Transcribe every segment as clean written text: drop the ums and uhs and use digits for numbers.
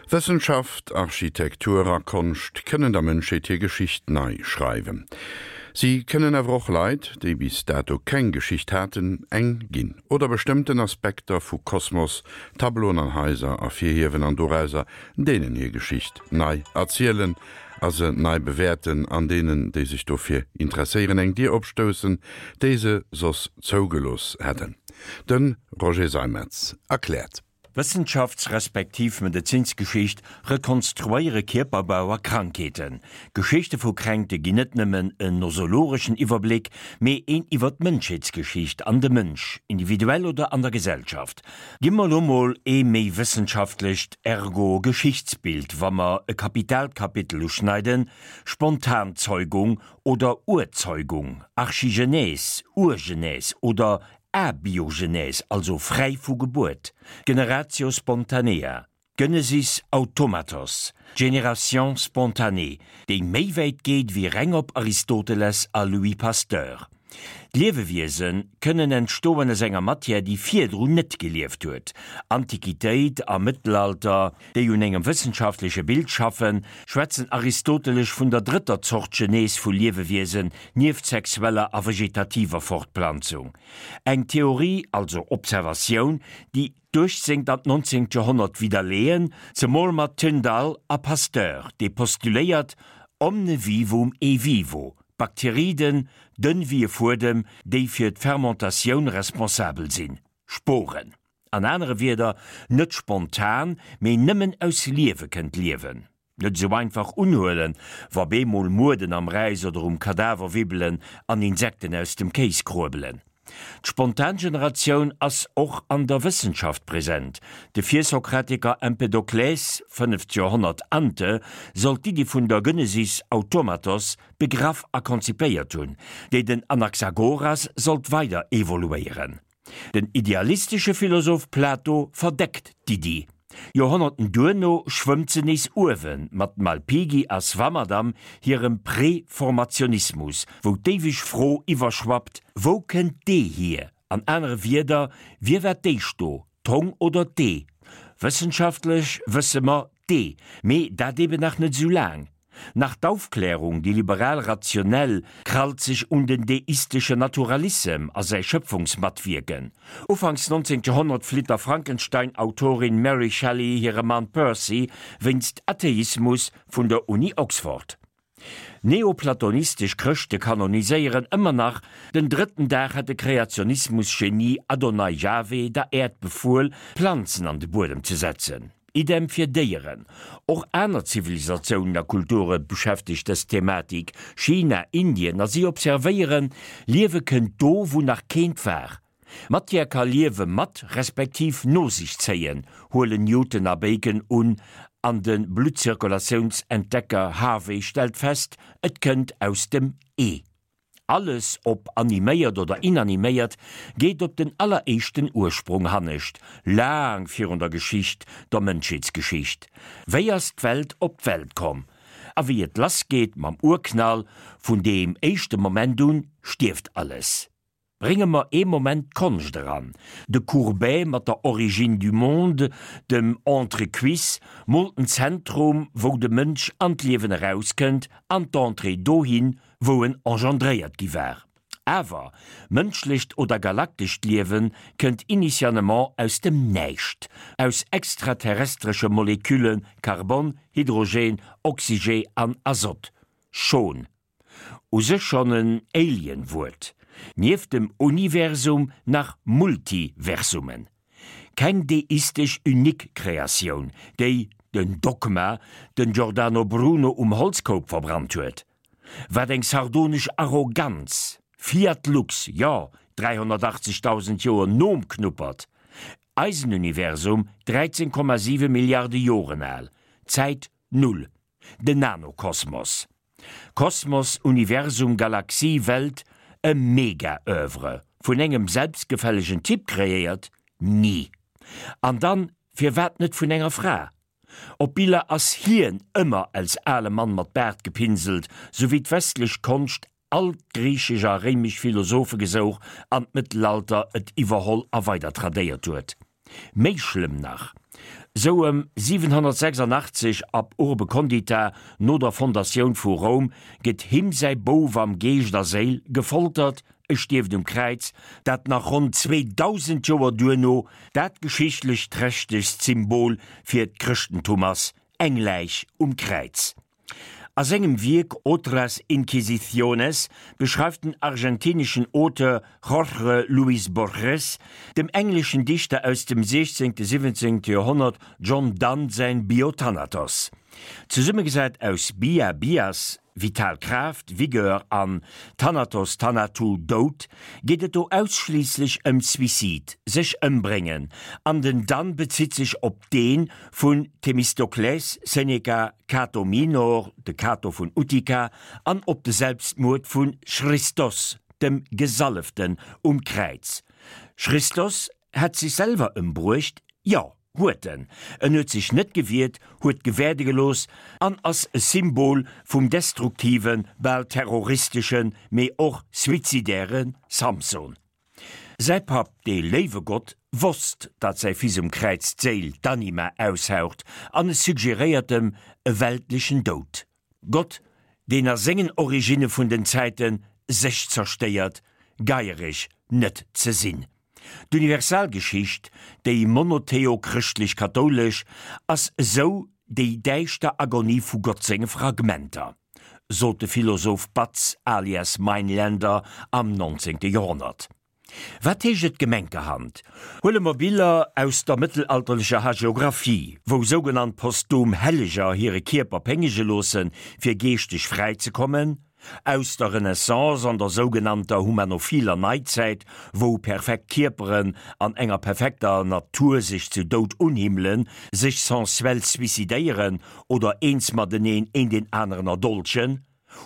Wëssenschaft, Architektur a Konscht kënnen der Mënschheet hir Geschicht nei schreiwen. Si kënnen awer och Leit, déi bis dato keng Geschicht haten, eng ginn. Oder bestëmmten Aspekter vu Kosmos, Tableauen an Haiser ervirhiewen an dorauser deenen hir Geschicht nei erzielen a se nei bewäerten an deenen, déi sech dofir interesséieren, eng Dier opstoussen, déi se soss zougelooss hätten. De Roger Seimetz erkläert. Wëssenschafts respektiv Medezinsgeschicht rekonstruéiere Kierperbau a Krankheeten. Geschichte vu Kränkte ginn net nëmmen en nosologeschen Iwwerbléck, mee een iwwer d'Mënschheetsgeschicht an de Mënsch, individuell oder an der Gesellschaft. Gi mer elo mol ee méi wëssenschaftlecht, ergo Geschichtsbild, wa mer e kapitaalt Kapitel uschneiden, Spontanzeugung oder Urzeugung, Archigenèse, Urgenèse oder Abiogenèse, also fräi vu Gebuert, Generatio spontanea, Genesis automatos, Génération spontanée, déi méi wäit geet wéi reng op Aristoteles a Louis Pasteur. D'Liewewiese kënnen entstoen aus enger Matière, déi virdrun net gelieft huet. Antiquitéit a Mëttelalter, déi un engem wëssenschaftleche Bild schaffen, schwätzen aristotelesch vun der drëtter Zort Genese vu Liewewiesen, nieft sexueller a vegetativer Fortplanzung. Eng Theorie, also Observatioun, déi d'uechtzéngt an d'nonzéngt Joerhonnert widderleeën, zemol mat Tyndall a Pasteur, dee postuléiert, Omne vivum e vivo, Bakteriden, dënn wéi e Fuedem, déi fir d'Fermentatioun responsabel sinn, Sporen. An anere Wierder, net spontan, mee nëmmen aus Liewe kënnt Liewen. Net esou einfach unhuelen, wa bemol Mueden am Räis oder um Kadaver wibbelen an Insekten aus dem Kéis kruebelen. D'Spontangeneratioun ass och an der Wëssenschaft present. De Virsokratiker Empedokles, fënneft Joerhonnert ante, soll d'Iddi vun der Genesis automatos begraff a konzipéiert hunn, déi den Anaxagoras sollt weider evoluéieren. Den idealistesche Philosoph Plato verdeckt d'Iddi. Joerhonnerten duerno schwëmmt se nees uewe mat Malpighi a Swammerdam hirem Preformationismus, wou d'éiweg Fro iwwerschwappt, Wou kënnt d'Ee hier? An anere Wierder, Wie war d'éischt do, d'Hong oder d'Ee? Wëssenschaftlech wësse mer, D'Ee, mee dat eben nach net esou laang. Nach d'Aufklärung, déi liberal-rationell, krallt sech un den deisteschen Naturalissem a säi Schëpfungsmatwierken. Ufanks 19. Joerhonnert flitt der Frankenstein-Autorin Mary Shelley hire Mann Percy wéinst Atheismus vun der Uni Oxford. Neoplatonistesch Chrëschte kanoniséieren ëmmer nach, den drëtten Dag hätt de Kreationismus-Genie Adonai Jahwe der Äerd befuel, Planzen an de Buedem ze setzen. Idem fir Déieren. Och aner Zivilisatiounen a Kulture beschäftegt dës Thematik, China, Indien, a si observéieren, Liewe kënnt do, wou nach keent war. Matière ka Liewe mat respektiv no sech zéien, huelen Newton a Bacon un, an de Bluttzirkulatiounsentdecker Harvey stellt fest, et kënnt aus dem Ee. Alles, ob animéiert oder inaniméiert, geet op den alleréischten Ursprong hannescht, laang virun der Geschicht, der Mënschheetsgeschicht. Wéi ass d'Welt op d'Welt komm? A wéi et lass geet mam Urknall, vun deem éischte Moment un stierft alles. Brénge mer ee Moment d'Konscht eran. De Courbet mat der Origine du monde, dem Entrecuisse, moolt en Zentrum, wou de Mënsch an d'Liewen erauskënnt, an d'Entrée dohin, wou en engendréiert gi war. Awer mënschlecht oder galaktescht Liewe kënnt initialement aus dem Näischt, aus extraterrestresche Molekülle Karbon, Hydrogen, Oxygen an Azot. Schon. U sech schonn en Alien-Wuert. Nieft dem Universum nach Multiversumen. Keng deistesch unique Kreatioun, déi, den Dogma, den Giordano Bruno um Holzkoup verbrannt huet. Wat eng sardonesch Arroganz! Fiat lux, jo, 380.000 Joer nom Knuppert. Eisen Universum 13,7 Milliarde Joren al. Zäit null. Den Nanokosmos. Kosmos, Universum, Galaxie, Welt, e Mega-Oeuvre, vun engem selbstgefällegen Typ kreéiert? Ni! An dann, firwat net vun enger Fra? Op Biller ass hien ëmmer als ale Mann mat Baart gepinselt, sou wéi d'westlech Konscht all d'griichesch a réimesch Philosophe gesouch an d'Mëttelalter et iwwerholl a weider tradéiert huet. Méi schlëmm nach, sou ëm 786 ab Urbe Condita, no der Fondatioun vu Roum, gëtt him säi Bouf am Geescht a Séil gefoltert, e stierft um Kräiz, dat nach ronn 2000 Joer duerno dat geschichtlech trächtegst Symbol fir d'Chrëschtentum ass, eng Läich um Kräiz. A sengem Wierk Otras Inquisiciones beschreift den argentineschen Auteur Jorge Luis Borges dem engleschen Dichter aus dem 16., 17. Joerhonnert John Donne säin Biothanatos. Zesummegesat aus bia, bias, vital Kraaft, Vigueur, an Thanatos, Thanatou, Doud, geet et do ausschliisslech ëm Suicide, sech ëmbréngen, an den Donne bezitt sech op dee vun Themistokles, Seneca, Cato Minor, de Cato vun Utica, an op de Selbstmuerd vu Christos, dem Gesalleften um Kräiz. Christos hätt sech selwer ëmbruecht? Jo, huet en. En huet sech net gewiert, huet gewäerde gelooss an ass e Symbol vum destruktiven, bal terroristeschen, mee och suizidäre Samson. Säi Papp, dee léiwe Gott, wosst, datt säi Fils um Kräiz d'Séil, d'Anima, aushaucht, an e suggeréiert em e weltlechen Doud. Gott, deen a sengen Originne vun den Zäite sech zerstéiert, geiereg net ze sinn. D'Universalgeschicht, déi monotheo-chrëschtlech-kathoulesch, ass esou déi däischter Agonie vu Gott senge Fragmenter. sot de Philosoph Batz alias Mainländer am 19. Joerhonnert. Wat heescht et gemenkerhand? Huele mer Biller aus der mëttelalterlecher Hagiographie, wou sougenannt posthum Helleger hire Kierper péngege loossen, fir geeschteg fräi ze kommen, aus der Renaissance an der sougenannter humanophiler Neizäit, wou perfekt Kierperen an enger perfekter Natur sech zu Doud unhimmelen, sech sensuell suicidéieren oder eens mateneen een deen aneren erdolchen.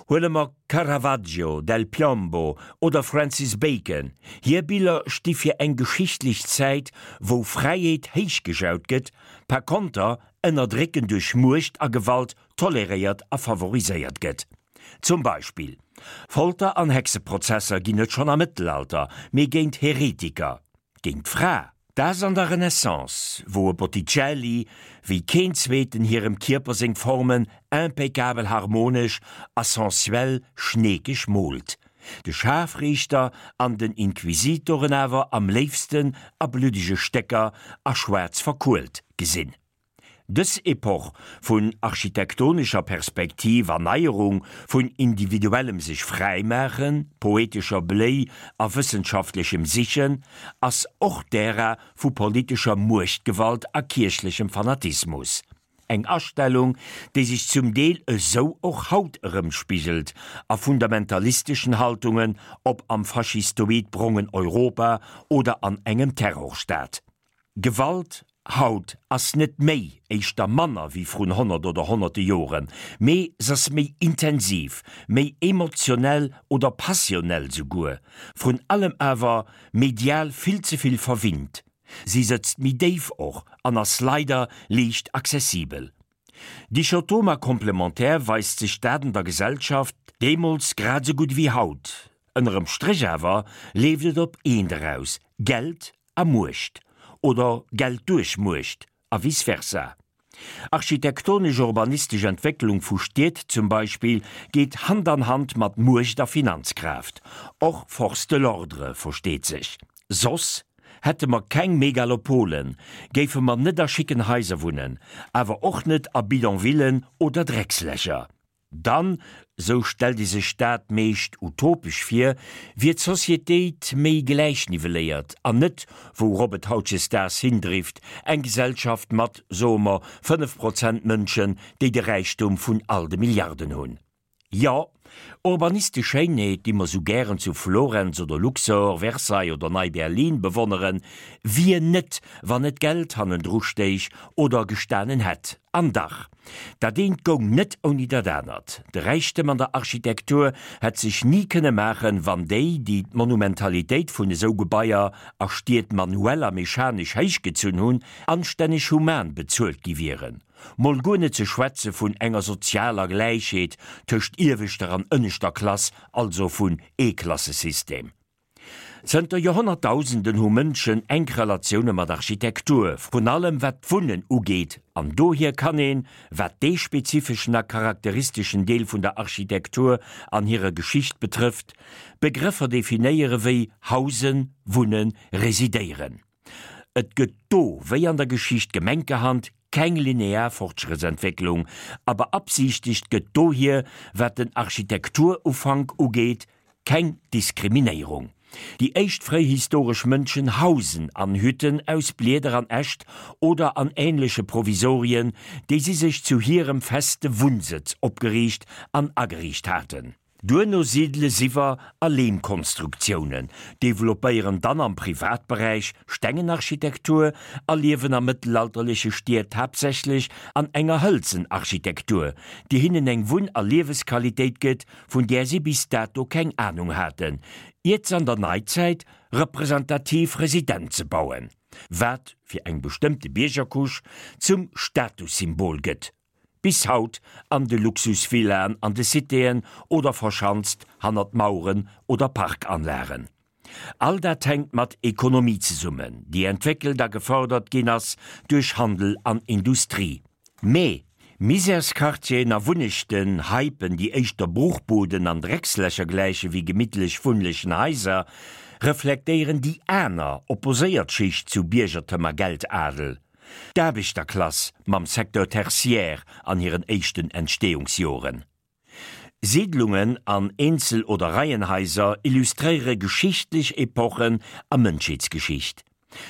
Huele mer Caravaggio, Del Piombo oder Francis Bacon, hir Biller sti fir eng geschichtlech Zäit, wou Fräiheet héichgejaut gëtt, par konter Ënnerdrécken duerch Muecht a Gewalt toleréiert a favoriséiert gëtt. Zum Beispill, Folter an Hexeprozesser ginn et schonn am Mëttelalter, mee géint Heretiker, géint d'Fra. Daags an der Renaissance, wou e Botticelli wéi keen zweeten hirem Kierper seng Formen impeccabel harmonesch a sensuell schneekeg moolt, de Schaarfriichter an den Inquisitoren awer am léifsten a bluddege Stécker a schwaarz verkuelt gesinn. Dës Epoch vun architektonescher Perspektiv an Neierung, vun individuellem sech fräimaachen, poetescher Bléi a wëssenschaftlechem Sichen, ass och d'Ära vu politescher Muechtgewalt a kierchlechem Fanatismus. Eng Astellung, déi sech zum Deel esou och haut erëmspigelt a fundamentalisteschen Haltungen, ob am faschistoid brongen Europa oder an engem Terrorstaat. Gewalt haut ass net méi, éischter manner wéi vrun 100 oder honnerte Joren, mee s'ass méi intensiv, méi emotionell oder passionell souguer, vrun allem awer medial vill ze vill verwinnt. Si sëtzt méi déif och an ass leider liicht accessibel. Dichotome a komplementär weist sech dat an der Gesellschaft, deemools grad esou gutt ewéi haut. Ënnerem Stréch awer leeft et op eent eraus, Geld a Muecht, oder Geld duerch Muecht, a vice versa. Architektonesch-urbanistesch Entwécklung vu Stied zum Beispill geet Hand an Hand mat Muecht a Finanzkraaft, och Force de l'ordre, versteet sech. Soss hätte mer keng Megalopolen, géife mer net a schicken Haiser wunnen, awer och net a Bidonvillen oder Dreckslächer. Dann, sou stellt ee sech dat meescht utopesch vir, wier d'Societéit méi gläichnivelléiert an net, wourop et hautjesdaags hindrift, eng Gesellschaft mat, soe mer, 5 Prozent Mënschen, déi de Räichtum vun all de Milliarden hunn. Jo, urbanistesch Schéinheet, déi mer sou gären zu Florenz oder Luxor, Versailles oder Nei-Berlin bewonneren, wier net, wann net Geld hannendru stéich oder gestanen hätt. An dach, dat eent goung net ouni dat anert. De Räichtem an der Architektur hätt sech ni kënne maachen, wann déi, déi d'Monumentalitéit vun esou Gebaier a Stied manuell a mechanesch héichgezunn hunn, anstänneg human bezuelt gi wieren. Mol guer net ze schwätze vun enger sozialer Gläichheet tëscht ieweschter an ënneschter Klass, also vun Eeklassesystem. Zënter Joerhonnertdausenden hu Mënschen enk Relatioune mat Architektur, vrun allem wat d'Wunnen ugeet, an dohier kann een, wat dee spezifeschen a charakteristeschen Deel vun der Architektur an hirer Geschicht betrëfft, Begrëffer definéiere wéi hausen, wunnen, residéieren. Et gëtt do, wéi an der Geschicht gemenkerhand, keng linear Fortschrëttsentwécklung, a beabsiichtegt gëtt dohier, wat den Architekturufank ugeet, Keng Diskriminéierung. Déi éischt fréihistoresch Mënschen hausen an Hütten aus Blieder an Äscht oder an änleche Provisorien, déi si sech zu hirem feste Wunnsëtz opgeriicht an ageriicht haten. Duerno sidele s'iwwer a Leemkonstruktiounen, developpéieren dann am Privatberäich Stengenarchitektur a liewen a mëttelalterleche Stied haaptsächlech an enger hëlzen Architektur, déi hinnen eng Wunn a Liewesqualitéit gëtt, vun där si bis dato keng Anung haten, iert s'an der Neizäit representativ Residenze bauen, wat fir eng bestëmmte Biergercouche zum Statussymbol gëtt, bis haut an de Luxusvillaen an de Citéen oder verschanzt hannert Maueren oder Parkanlagen. All dat hänkt mat Ekonomie zesummen, déi entwéckelt a gefërdert ginn ass duerch Handel an Industrie. Mee Misärsquartieren a Wunnechten, Heipen, déi éischter Bruchbuden an Dreckslächer gläiche wéi gemittlech wunnlechen Haiser, reflektéieren déi aner, opposéiert Schicht zu Biergertem a Geldadel, d'Aarbechterklass mam Secteur tertiaire an hiren éischten Entstehungsjoren. Siidlungen an Eenzel oder Reienhaiser illustréiere geschichtlech Epochen a Mënschheetsgeschicht.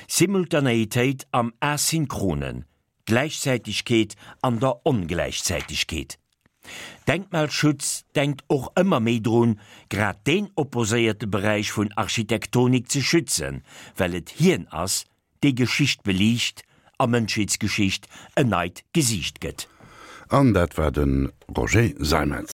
Simultanéitéit am Asynchronen, Gläichzäitegkeet an der Ongläichzäitegkeet. Denkmalschutz denkt och ëmmer méi drun, grad deen opposéierte Beräich vun Architektonik ze schützen, well et hien ass, déi Geschicht beliicht a Mënschheetsgeschicht en neit Gesiicht gëtt. An dat war de Roger Seimetz.